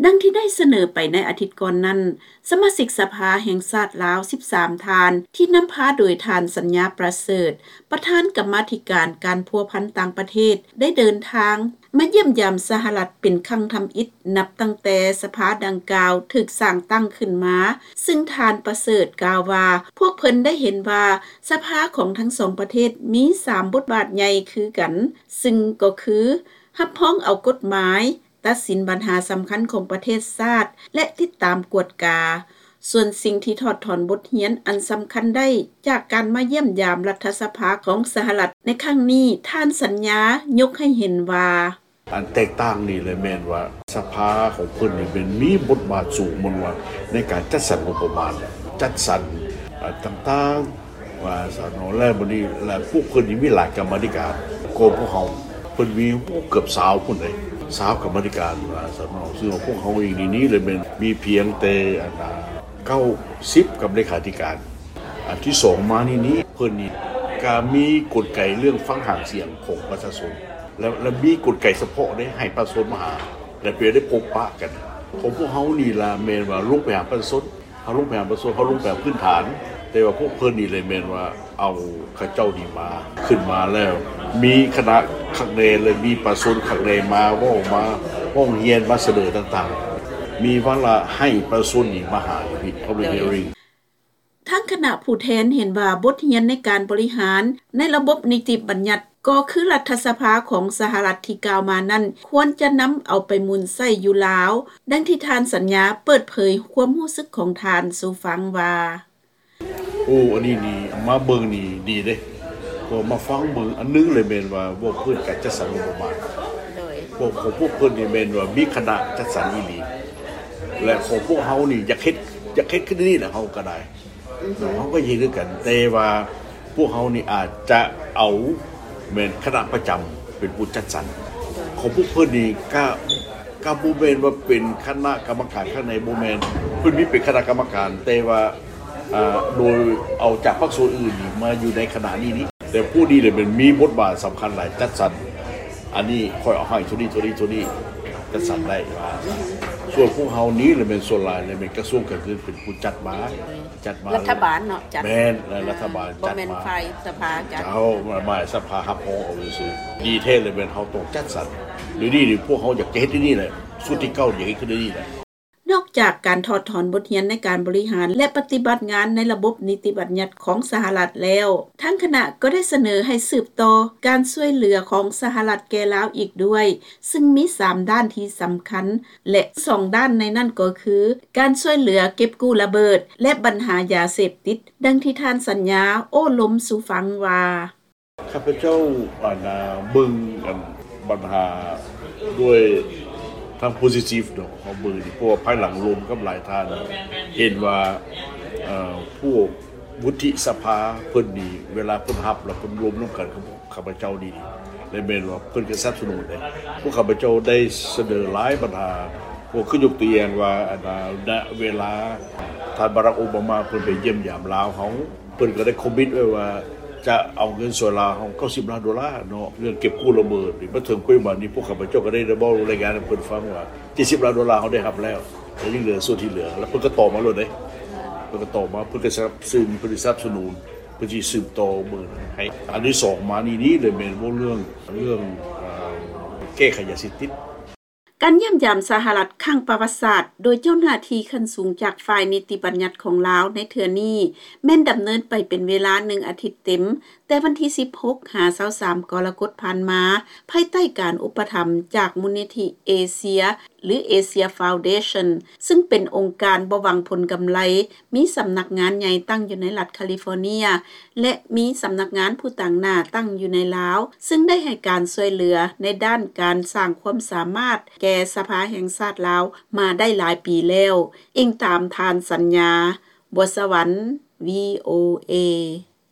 ດັ່ງທີ່ໄດ້ສະເໜີໄປໃນອາທິດກ່ອນນັ້ນ, ສະມາຊິກສະພາແຫ່ງຊາດລາວສິບສາມທ່ານ ທີ່ນຳພາໂດຍທ່ານ ສັນຍາ ປະເສີດ ປະທານກຳມາທິການການພົວພັນຕ່າງປະເທດ ໄດ້ເດີນທາງມາຢ້ຽມຢາມສະຫະລັດເປັນຄັ້ງທຳອິດ ນັບຕັ້ງແຕ່ສະພາດັ່ງກ່າວຖືກສ້າງຕັ້ງຂຶ້ນມາ, ຊຶ່ງທ່ານ ປະເສີດ ກ່າວວ່າ ພວກເພິ່ນໄດ້ເຫັນວ່າສະພາຂອງທັງສອງປະເທດມີສາມບົດບາດໃຫຍ່ຄືກັນ, ຊຶ່ງກໍຄື ຮັບຮອງເອົາກົດໝາຍ, ຕັດສິນບັນຫາສຳຄັນຂອງປະເທດຊາດ ແລະ ຕິດຕາມກວດກາ. ສ່ວນສິ່ງທີ່ຖອດຖອນບົດຮຽນອັນສຳຄັນໄດ້ຈາກການມາຢ້ຽມຢາມລັດຖະສະພາຂອງສະຫະລັດໃນຄັ້ງນີ້, ທ່ານ ສັນຍາ ຍົກໃຫ້ເຫັນວ່າ ອັນແຕກຕ່າງນີ້ແຫຼະແມ່ນວ່າສະພາຂອງເພິ່ນນີ້ແມ່ນມີບົດບາດສູງ ມັນວ່າໃນການຈັດສັນງົບປະມານ, ຈັດສັນ ອາ ຕ່າງໆ ວ່າຊັ້ນເນາະ ແລ້ວບັດນີ້ ແລ້ວພວກເພິ່ນນີ້ມີຫຼາຍກຳມາທິການກວ່າພວກເຮົາ, ເພິ່ນມີ ໂອ້ ເກືອບຊາວພຸ້ນເດ້ ຊາວກຳມາທິການ ວ່າຊັ້ນເນາະ, ຊຶ່ງວ່າພວກເຮົາເອງນີ້ ນີ້ລະແມ່ນມີພຽງແຕ່ ອັນ ເກົ້າສິບ ກຳເລຂາທິການ. ອັນທີສອງມານີ້ນີ້ ເພິ່ນນີ້ກະມີກົນໄກເລື່ອງຟັງຫາງສຽງຂອງປະຊາຊົນ ແລະ ແລະ ມີກົນໄກສະເພາະເດ້ ໃຫ້ປະຊາຊົນມາຫາ ແລະ ເພື່ອໄດ້ພົບປະກັນ. ຂອງພວກເຮົານີ້ລະແມ່ນວ່າລົງໄປຫາປະຊາຊົນ, ເຮົາລົງໄປຫາປະຊາຊົນ, ເຮົາລົງໄປພື້ນຖານ, ແຕ່ວ່າພວກເພິ່ນນີ້ແຫຼະແມ່ນວ່າເອົາເຂົາເຈົ້ານີ້ມາ ຂຶ້ນມາແລ້ວ ມີຄະນະຄັກແນ່ ແລະ ມີປະຊາຊົນຄັກແນ່ ມາເວົ້າ ມາຮ້ອງຮຽນ ມາສະເໜີຕ່າງໆ, ມີວາລະໃຫ້ປະຊາຊົນນີ້ມາຫາຢູ່ພີ້ Public Hearing. ທາງຄະນະຜູ້ແທນເຫັນວ່າບົດຮຽນໃນການບໍລິຫານໃນລະບົບນິຕິບັນຍັດ ກໍຄືລັດຖະສະພາຂອງສະຫະລັດທີ່ກ່າວມານັ້ນ ຄວນຈະນຳເອົາໄປໝູນໃຊ້ຢູ່ລາວ, ດັ່ງທີ່ທ່ານ ສັນຍາ ເປີດເຜີຍຄວາມຮູ້ສຶກຂອງທ່ານສູ່ຟັງວ່າ ໂອ້ ອັນນີ້ນີ້ມາເບິ່ງນີ້ດີເດ້ ເພາະມາຟັງເບິ່ງ ອັນໜຶ່ງເລີຍແມ່ນວ່າເວົ້າເລື່ອງການຈັດສັນງົບປະມານ ໂດຍ ພວກ ຂອງພວກເພິ່ນນີ້ແມ່ນວ່າມີຄະນະຈັດສັນອີ່ຫຼີ ແລະ ຂອງພວກເຮົານີ້ຢາກເຮັດ ຢາກເຮັດຄືນີ້ແຫຼະ ເຮົາກໍໄດ້ ເຮົາກໍເຮັດຄືກັນ ແຕ່ວ່າພວກເຮົານີ້ອາດຈະເອົາແມ່ນຄະນະປະຈຳເປັນຜູ້ຈັດສັນ ຂອງພວກເພິ່ນນີ້ກະ ກະບໍ່ແມ່ນວ່າເປັນຄະນະກຳມະການຂ້າງໃນ ບໍ່ແມ່ນ ເພິ່ນມີເປັນຄະນະກຳມະການ ແຕ່ວ່າ ອ່າ ໂດຍເອົາຈາກພາກສ່ວນອື່ນນີ້ມາຢູ່ໃນຄະນະນີ້ນີ້ ແຕ່ຜູ້ນີ້ແຫຼະແມ່ນມີບົດບາດສຳຄັນຫຼາຍ ຈັດສັນ ອັນນີ້ຂ້ອຍເອົາໃຫ້ໂທນີ້ ໂທນີ້ ໂທນີ້ ຈັດສັນໄດ້ວ່າ ສ່ວນພວກເຮົານີ້ລະແມ່ນສ່ວນຫຼາຍລະແມ່ນກະຊວງການເງິນເປັນຜູ້ຈັດມາ ຈັດມາ ລັດຖະບານເນາະ ຈັດ ແມ່ນ ແລະ ອາ ລັດຖະບານຈັດມາ ບໍ່ແມ່ນຝ່າຍສະພາຈັດ ເຈົ້າ ມາ ມາສະພາຮັບຮອງເອົາຊື່ໆ ດີແທ້ລະແມ່ນເຮົາຕ້ອງຈັດສັນ ດຽວນີ້ນີ້ພວກເຮົາຢາກຈະເຮັດດຽວນີ້ແຫຼະ ຊຸດທີເກົ້າຢາກເຮັດຄືດຽວນີ້ແຫຼະ. ນອກຈາກການຖອດຖອນບົດຮຽນໃນການບໍລິຫານ ແລະ ປະຕິບັດງານໃນລະບົບນິຕິບັນຍັດຂອງສະຫະລັດແລ້ວ, ທາງຄະນະກໍໄດ້ສະເໜີໃຫ້ສືບຕໍ່ການຊ່ວຍເຫຼືອຂອງສະຫະລັດແກ່ລາວອີກດ້ວຍ, ຊຶ່ງມີສາມດ້ານທີ່ສຳຄັນ ແລະ ສອງດ້ານໃນນັ້ນກໍຄື ການຊ່ວຍເຫຼືອເກັບກູ້ລະເບີດ ແລະ ບັນຫາຢາເສບຕິດ, ດັ່ງທີ່ທ່ານສັນຍາໂອ້ລົມສູ່ຟັງວ່າ ຂ້າພະເຈົ້າ ອັນ ເບິ່ງ ອັນ ບັນຫາດ້ວຍທາງ positive ເນາະ ເຮົາເບິ່ງ ເພາະວ່າພາຍຫຼັງລົມກັບຫຼາຍທ່ານ ເຫັນວ່າ ເອີ ພວກວຸດທິສະພາເພິ່ນນີ້ ເວລາເພິ່ນຮັບແລ້ວເພິ່ນລົມນຳກັນກັບພວກຂ້າພະເຈົ້ານີ້ ແລະ ແມ່ນວ່າເພິ່ນກໍສະໜັບສະໜູນເດ້ ພວກຂ້າພະເຈົ້າໄດ້ສະເໜີຫຼາຍບັນຫາ ພວກຄືຍົກຕົວຢ່າງວ່າ ອັນ ນະ ເວລາທ່ານບາຣັກ ໂອບາມາ ເພິ່ນໄປຢ້ຽມຢາມລາວເຮົາ ເພິ່ນກໍໄດ້ຄອມມິດໄວ້ວ່າຈະເອົາເງິນຊ່ວຍລາວເຮົາເກົ້າສິບລ້ານໂດລາເນາະ ເລື່ອງເກັບກູ້ລະເບີດນີ້ ມາເຖິງປັດຈຸບັນນີ້ ພວກຂ້າພະເຈົ້າກໍໄດ້ ໄດ້ເວົ້າລາຍງານໃຫ້ເພິ່ນຟັງວ່າເຈັດສິບລ້ານໂດລາເຮົາໄດ້ຮັບແລ້ວ ແລະ ຍັງເຫຼືອສ່ວນທີ່ເຫຼືອ ແລ້ວເພິ່ນກໍຕອບມາໂລດເດ້ ເພິ່ນກໍຕອບມາ ເພິ່ນກໍສະໜັບສະໜູນ ເພິ່ນສະໜັບສະໜູນ ເພິ່ນຊິສືບຕໍ່ເບິ່ງໃຫ້ ອັນທີສອງມານີ້ນີ້ເລີຍແມ່ນເວົ້າເລື່ອງ ເລື່ອງ ເອີ ແກ້ໄຂຢາເສບຕິດ. ການຢ້ຽມຢາມສະຫະລັດຄັ້ງປະຫວັດສາດ ໂດຍເຈົ້າໜ້າທີ່ຂັ້ນສູງຈາກຝ່າຍນິຕິບັນຍັດຂອງລາວໃນເທື່ອນີ້ ແມ່ນດຳເນີນໄປເປັນເວລາໜຶ່ງອາທິດເຕັມ, ແຕ່ວັນທີສິບຫົກ ຫາ ຊາວສາມ ກໍລະກົດຜ່ານມາ, ພາຍໃຕ້ການອຸປະຖຳຈາກມູນນິທິເອເຊຍ ຫຼື Asia Foundation ຊຶ່ງເປັນອົງການບໍ່ຫວັງຜົນກຳໄລ, ມີສຳນັກງານໃຫຍ່ຕັ້ງຢູ່ໃນລັດຄາລິຟໍເນຍ ແລະ ມີສຳນັກງານຜູ້ຕາງໜ້າຕັ້ງຢູ່ໃນລາວ, ຊຶ່ງໄດ້ໃຫ້ການຊ່ວຍເຫຼືອໃນດ້ານການສ້າງຄວາມສາມາດແກ່ສະພາແຫ່ງຊາດລາວມາໄດ້ຫຼາຍປີແລ້ວ, ອີງຕາມທ່ານ ສັນຍາ ບົວສະຫວັນ, ວີໂອເອ.